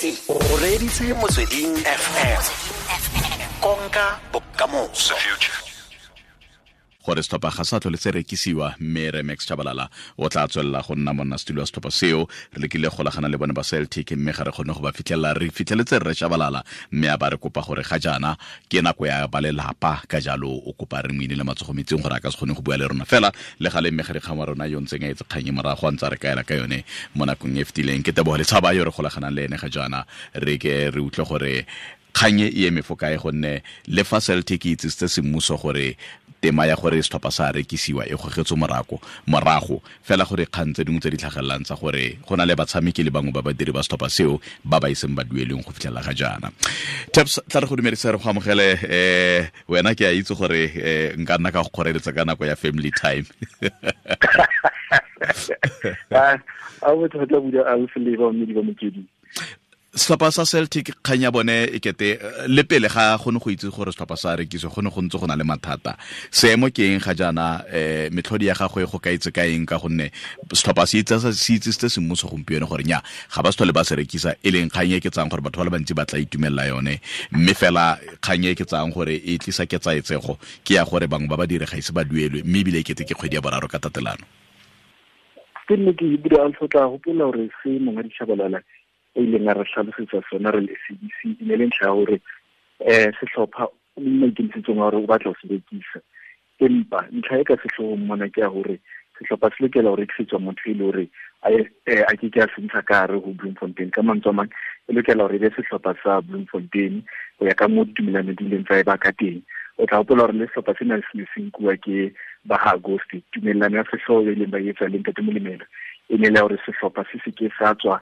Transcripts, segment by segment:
O reditse Motsweding FM. Konka bokamoso. Gore setlhopha ga sa tlhole se rekisiwa, mme re Max Chabalala o tla tswelela go nna monnasetulo wa setlhopha seo. Re lekile golagana le bone ba Celtic, mme ga re kgone go ba fitlhelela. Re fitlheletse rre Chabalala, mme a ba re kopa gore ga jaana ke nako ya ba lelapa, ka jalo o kopa re moine le matsogo metsing gore a ka se kgone go bua le rona. Fela le gale mme ga dikgang wa rona yo ntseng a etse kgang e morago a ntse a re kaela ka yone mo nakong e fetileng, ke Tebogo Letshaba yo re golaganang le ene ga jaana. Re ke re utlwe gore kgang e eme fo kae, gonne le fa Celtic e itsisitse semmuso gore tema ya gore setlhopha sa rekisiwa e gogetswe morago, fela gore kgang tse dingwe tse di tlhagelelang tsa gore go na le batshameki le bangwe ba badiri ba setlhopha seo ba ba iseng ba dueleng go fitlhelela ga jaana. Taps, tla re go dumedisa, re go amogele. Wena ke a itse gore nka nna ka go kgoreletsa ka nako ya family time. A bothata buda a le ba mme di ba Motsweding. Setlhopha sa Celtic, kgang ya bone e kete le pele ga go ne go itse gore setlhopha sa rekisiwa, go ne go ntse go na le mathata. Seemo ke eng ga jaana? Metlhodi ya gagwe go ka itse ka eng, ka gonne setlhopha se itsisitse semmuso gompieno gore nya ga ba se tlhole ba se rekisa, e leng kgang e ke tsang gore batho ba le bantsi ba tla itumelela yone, mme fela kgang e ke tsang gore e tlisa ketsaetsego ke ya gore bangwe ba badiri ga ise ba duelwe, mme ebile e kete ke kgwedi ya boraro ka tatelano. Ke nne ke ebile a tla gopola gore se Monghadi Tshabalala e ileng a re tlhalosetsa sona re le SABC e ne le ntlha ya gore sehlopha o maikemisetsong a gore o batla go se rekisa, empa ntlha e ka sehloohong mona ke ya gore sehlopha se lokela ho rekisetswa motho e le hore a ke ke a se ntsha ka hare ho Bloemfontein. Ka mantswe a mang, e lokela hore e be sehlopha sa Bloemfontein ho ya ka moo ditumelano di ileng tsa e ba ka teng. O tla hopola hore le sehlopha sena se ne se nkuwa ke ba ha Auguste. Tumellano ya sehlooho e leng ba etsa le Ntate Molemela e ne le hore sehlopha se se ke sa tswa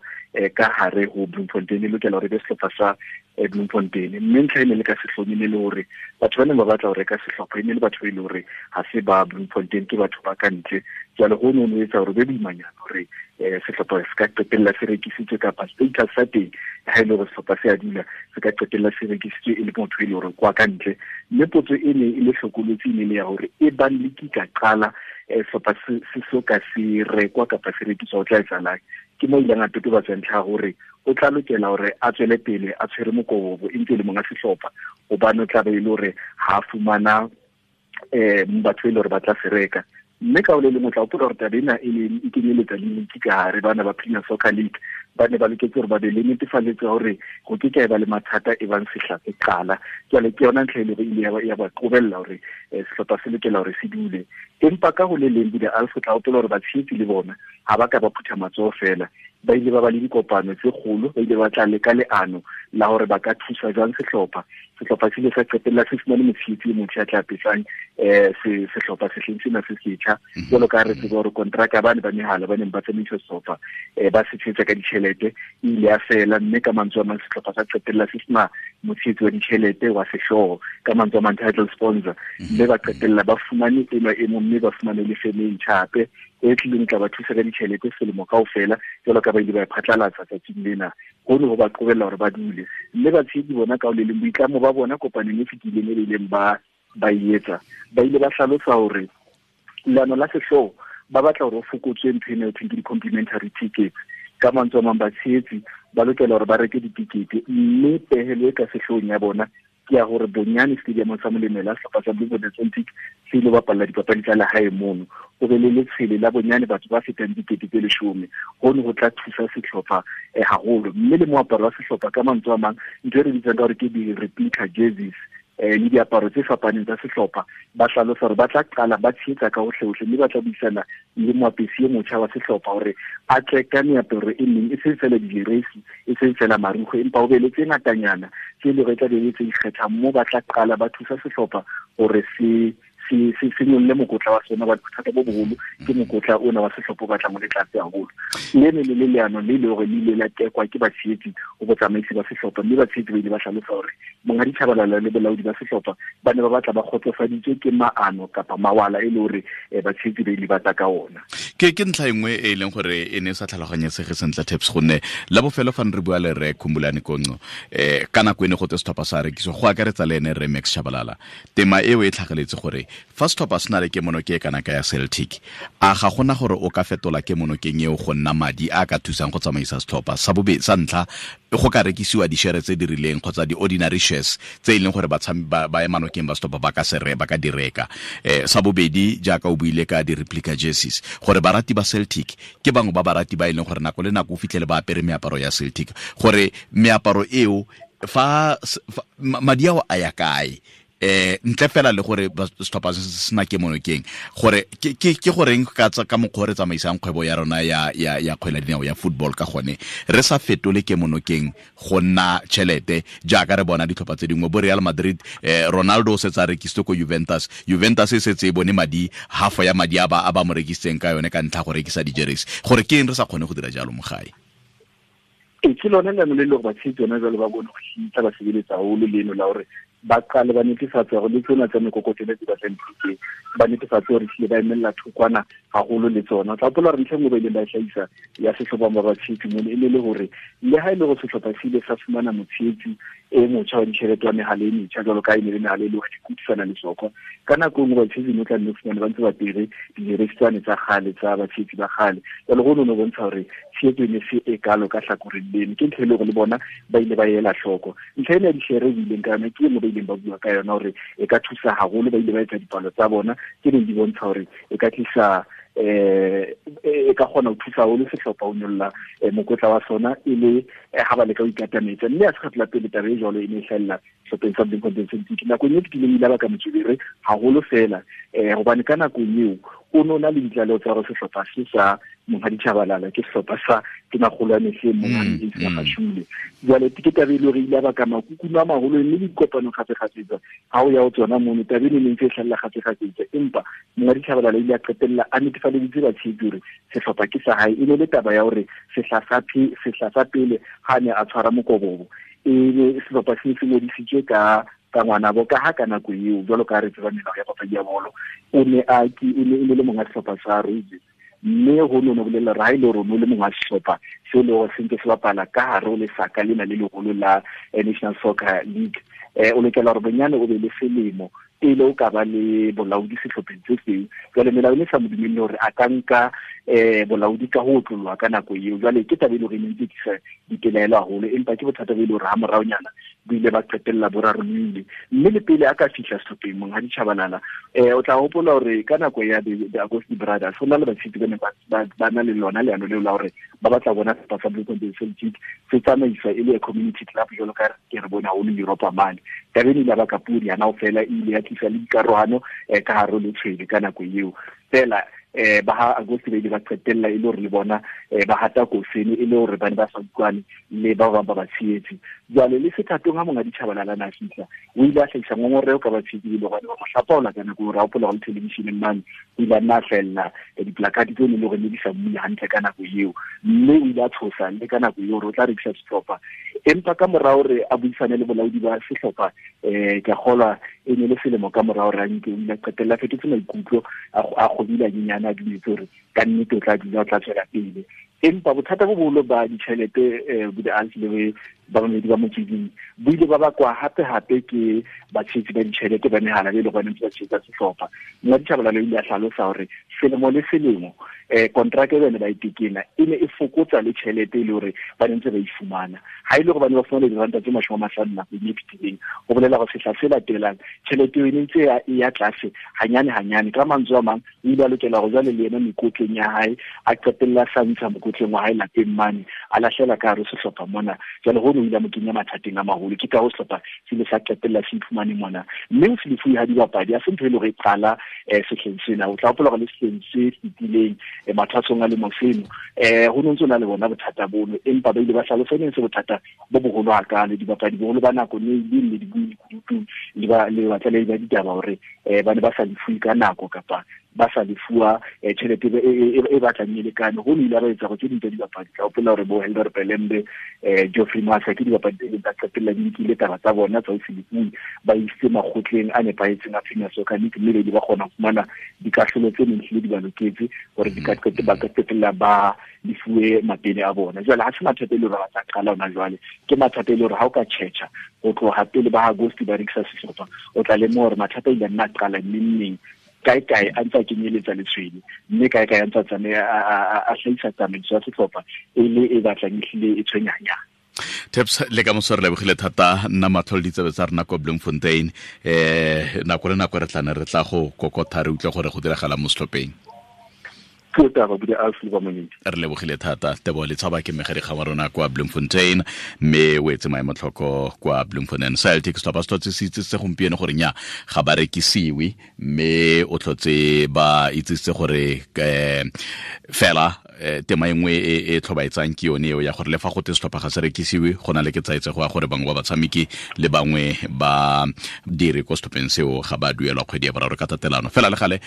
ka hare ho Bloemfontein, e lokela hore e be sehlopha sa Bloemfontein. Mme ntlha e ne le ka sehloohong e ne le hore batho ba neng ba batla ho reka sehlopha e ne le batho ba e le hore ha se ba Bloemfontein, ke batho ba ka ntle. Jwale ho no ho etsa hore be boimanyana hore sehlopha se ka qetella se rekisitswe, kapa status sa teng ha e le hore sehlopha se a dula se ka qetella se rekisitswe e le motho e le hore kwa ka ntle. Mme potso e ne e le hlokolotsi e ne le ya hore e bang le ki ka qala sehlopha se so ka se rekwa kapa se rekiswa, ho tla etsahalang. Ke mo ileng a totobatsa ntlha ya hore o tla lokela hore a tswele pele a tshwere mokobobo e ntse e le monga sehlopha, hobane o tla be e le hore ha fumana batho e le hore ba tla se reka. Mme ka ho le leng o tla hopola hore taba ena e ne e kenyeletsa le league ka hare, bana ba Premier Soccer League ba ne ba loketse hore ba be le netefaletso ya hore ho ke ke ha eba le mathata e bang sehla se qala. Jwale ke yona ntlha e le hore e ile ya ba qobella hore sehlopha se lokela hore se dule. Empa ka ho le leng Buda Alf, o tla hopola hore batshehetsi le bona ha ba ka ba phutha matsoho fela, ba ile ba ba le dikopano tse kgolo, ba ile ba tla leka leano la hore ba ka thusa jwang sehlopha. Sehlopha se ile sa qetella se fumane motshehetsi e motjha ya tla apesang sehlopha sehleng sena se setjha. Jwalo ka ha re tseba hore kontraka ba ne ba mehala ba neng ba tsamaisa sehlopha ba se tshehetsa ka ditjhelete e ile ya fela, mme ka mantswe a mang sehlopha sa qetella se sena motshehetsi wa ditjhelete wa sehlooho, ka mantswe a mang title sponsor, mme ba qetella ba fumane enwa e mong, mme ba fumane le feme e ntjha hape e tlileng tla ba thusa ka ditjhelete selemo kaofela, jwalo ka ba ile ba e phatlalatsa tsatsing lena. Hono ho ba qobella hore ba dule. Mme batshehetsi bona ka ho le leng boitlamo ba bona kopanong e fetileng e ileng ba e etsa, ba ile ba hlalosa hore leano la sehlooho ba batla hore ho fokotswe ntho ena e thweng ke di-complimentary tickets. Ka mantswe a mang, batshehetsi ba lokela hore ba reke ditikete, mme pehelo e ka sehloohong ya bona ke ya hore bonyane stadium sa Molemela sehlopha sa Bloemfontein Celtic se ile bapalla dipapadi tsa lehae mono, ho be le letshwele la bonyane batho ba fetang 10,000. Hono ho tla thusa sehlopha haholo. Mme le moaparo wa sehlopha, ka mantswe a mang, ntho e re bitsang ka hore ke di-replica jerseys le diaparo tse fapaneng tsa sehlopha, ba hlalosa hore ba tla qala ba tshehetsa ka hohle-hohle, mme ba tla buisana le moapesi e motjha wa sehlopha hore a tle ka meaparo e meng, e seng feela dijeresi, e seng feela marukgwe, empa ho be le tse ngatanyana tse leng hore e tla be e le tse ikgethang, moo ba tla qala ba thusa sehlopha hore se nyolle mokotla wa sona. Ba bothata bo boholo ke mokotla ona wa sehlopha o batlang o le tlase haholo. Le ne le le leano le le hore le ile la tekwa ke batshehetsi ho botsamaisi ba sehlopha, mme batshehetsi ba ile ba hlalosa hore Monghadi Tshabalala le bolaodi ba sehlopha ba ne ba batla ba kgotsofaditswe ke maano kapa mawala e le hore batshehetsi ba ile ba tla ka ona. Ke ntlha e nngwe e leng gore e ne sa tlhaloganyesege sentle Taps, gonne la bofelo fa re bua le re Khumbulani Konco ka nako e ne go tse setlhopha sa rekisiwa, go akaretsa le ene re Max Tshabalala, tema eo e tlhageletse gore Fa setlhopha se na le kemonoke e kana ka ya Celtic, a ga gona gore o ka fetola kemonokeng eo go nna madi a ka thusang go tsamaisa setlhopha? Sa bobe sa ntlha, go ka rekisiwa di-share tse di rileng kgotsa di-ordinary shares tse e leng gore ba emanokeng ba setlhopha ba ka se ba ka di reka. Sa bobedi, jaaka o buile ka di-replica jerseys, gore barati ba Celtic ke bangwe ba barati ba e leng gore nako le nako o fitlhele ba apere meaparo ya Celtic, gore meaparo eo fa madi ao a ya kae, ntle fela le gore setlhopha se sena ke monokeng, gore ke goreng ka mokgwa re tsamaisang kgwebo ya rona ya kgwele dinao ya football ka gone, re sa fetole ke monokeng go nna tšhelete jaaka re bona ditlhopha tse dingwe bo Real Madrid. Ronaldo o setse a rekisitse ko Juventus, Juventus e setse e bone madi, half ya madi a ba mo rekisitseng ka yone ka ntlha go rekisa di-jerseys. Gore ke eng re sa kgone go dira jalo mo gae? Ke lone leano le le gore batshegetsi yone jalo ba bone go hitsa ba sebeletsa haholo leno la gore ba qale ba netefatse gore le tsona tsa mekokotelo tse batlang phuteng, ba netefatse gore tlile ba emelela thokwana haholo le tsona. O tla hopola hore ntlha e nngwe ba ileng ba e hlahisa ya sehlopha ba batshehetsi mone e ne le hore le ha e le gore sehlopha se ile sa fumana motshehetsi e motjha wa ditjhelete wa mehala e metjha, jwalo ka e ne le mehala e le hore di kutisana le sokwa, ka nako e nngwe batshehetsi no tla nne fumane ba ntse ba apere dijeresi tsane tsa kgale tsa batshehetsi ba kgale. Jwale ho no bontsha hore tshehetso e ne se e kalo ka hlakoreng leno. Ke ntho e le hore le bona ba ile ba ela hloko. Ntlha ena ya dishere e ileng ka yona ke e nngwe ba ileng ba bua ka yona hore e ka thusa haholo. Ba ile ba etsa dipalo tsa bona tse neng di bontsha hore e ka tlisa e ka kgona ho thusa haholo sehlopha ho nyolla mokotla wa sona e le ha ba leka ho ikatametsa. Mme ha se kgetlo la pele taba e jwalo e ne e hlahella sehlopheng sa Bloemfontein Celtic. Nakong e fetileng ile ba ka motswebere haholo fela, hobane ka nakong eo o no na le ditlaleho tsa hore sehlopha se sa Monghadi Tshabalala ke sehlopha sa Tonakgolo ya mehleng Monghadi Ace Magashule. Jwale ke taba e le hore ile ba ka makukuno a maholo, mme le dikopano kgafekgafetsa ha o ya ho tsona mono taba eno e ne ntse e hlahella kgafekgafetsa. Empa Monghadi Tshabalala ile a qetella a netefaleditse batshehetsi hore sehlopha ke sa hae. E ne le taba ya hore sehla sa pele ha ne a tshwara mokobobo, e be sehlopha se se ngodisitswe ka ngwanabo, ka ha ka nako eo jwalo ka re tseba melao ya papadi ya bolo, o ne a ke e ne le monga sehlopha sa Roses, mme ho no bolella hore ha e le hore o le monga sehlopha seo le hore se ntse se bapala ka hare ho lesaka lena le leholo la National Soccer League, o lokela hore bonyane o be le selemo pele o ka ba le bolaodi sehlopheng se seng. Jwale melao e ne sa mo dumelle hore a ka nka bolaodi ka ho otlollwa ka nako eo. Jwale ke taba e le hore e ne ntse tlisa dipelaelo haholo, empa ke bothata bo e le hore ha moraonyana bo ile ba qetella bo rarolohile. Mme le pele a ka fihla sehlopheng Monghadi Tshabalala, o tla hopola hore ka nako ya the Augustine Brothers ho na le batshehetsi ba neng ba na le lona leano leo la hore ba batla bona sehlopha sa Bloemfontein Celtic se tsamaiswa e le community club jwalo ka ke re bone haholo Europa mane. Taba eno ile ya baka podi hana fela, e ile ya tlisa le dikarohano ka hare ho letshwele ka nako eo. Fela ba ha Augustine ba ile ba qetella e le hore le bona ba hata kosene e le hore ba ne ba sa utlwane le ba bang ba batshehetsi. Jwale le sethatong ha Monghadi Tshabalala na fihla, o ile a hlahisa ngongoreho ka batshehetsi le hobane ba mo hlapaola ka nako eo, ra hopola hore televisheneng mane o ile a nna a hlahella diplakate tseo ne le hore ne di sa mmule hantle ka nako eo, mme o ile a tshosa le ka nako eo hore o tla rekisa sehlopha. Empa ka mora hore a buisane le bolaodi ba sehlopha, ke a kgolwa e ne le selemo ka mora hore a nke, o ile a qetella a fetotse maikutlo, a kgobile hanyenyane, a dumetse hore ka nnete o tla dula, o tla tswela pele. Empa bothata bo boholo ba ditjhelete bo di-Alf le ba bamedi ba motsweding bo ile ba bakwa hape-hape ke batshehetsi ba ditjhelete ba mehala be le gone ntse ba tshehetsa sehlopha. Monghadi Tshabalala o ile a hlalosa hore selemo le selemo kontraka e bane ba e tekena e ne e fokotsa le tjhelete e le hore ba ne ntse ba e fumana. Ha e le hore ba ne ba fumana diranta tse 50 nakong e fetileng, ho bolela hore sehla se latelang tjhelete eo e ne ntse e ya tlase hanyane hanyane. Ka mantswe a mang, o ile a lokela hore jwale le yena mekotleng ya hae a qetella a sa ntsha mokotleng wa hae lapeng mane, a lahlela ka hare ho sehlopha mona. Jwale hono o ile a mo kenya mathateng a maholo. Ke ka ho sehlopha se ile sa qetella se iphumane mona. Mme ho se lefuwe ha dibapadi ha se ntho e le hore e qala sehleng sena. O tla hopola hore le sehleng se fetileng mathwasong a lemo seno, ho no ntso na le bona bothata bono, empa ba ile ba hlalosa e ne se bothata bo boholo hakalo. Dibapadi boholo ba nako ne le le di bue dikutu le ba le batlalehi ba ditaba hore ba ne ba sa lefuwe ka nako kapa ba sa lefuwa tjhelete e batlang e lekane. Ho ile ba etsa go tse ding tsa dibapadi, ka hopola hore bo Helder Pelembe, Geoffrey Massa ke dibapadi tse tsa qetella di nkile taba tsa bona tsa ho se lefuwe, ba isitse makgotleng a nepahetseng a Premier Soccer League, mme di ba kgona ho fumana dikahlolo tse neng hlile di ba loketse hore di ka ba ka qetella ba lefuwe mapele a bona. Jwale ha se mathata e le hore ba tla qala hona jwale, ke mathata e le hore ha o ka tjhetjha ho tloha pele ba August ba rekisa sehlopha, o tla lemoha hore mathata a ile a nna qala neng kae kae a ntse a kenyeletsa letshwele, mme kae kae a ntse a tsamaya a hlahisa tsamaiso ya sehlopha e le e batlang ehlile e tshwenyanyana. Taps, le ka moso re lebogile thata nna matlho le ditsebe tsa rena ko Bloemfontein. Nako le nako re tla ne re tla go kokotha re utlwe gore go diragala mo setlhopheng. Re lebogile thata. Tebogo Letshaba ke mmegadikgang wa rona kwa Bloemfontein, mme o etse maemotlhoko kwa Bloemfontein Celtic. Setlhopha se tlhotse se itsisitse gompieno gore nya ga ba rekisiwe, mme o tlhotse ba itsisitse gore fela tema e nngwe e tlhobaetsang ke yone eo ya gore le fa gote setlhopha ga se rekisiwe, go na le ketsaetsego ya gore bangwe ba batshameki le bangwe ba dire ko setlhopheng seo ga ba duelwa kgwedi ya boraro ka tatelano. Fela le gale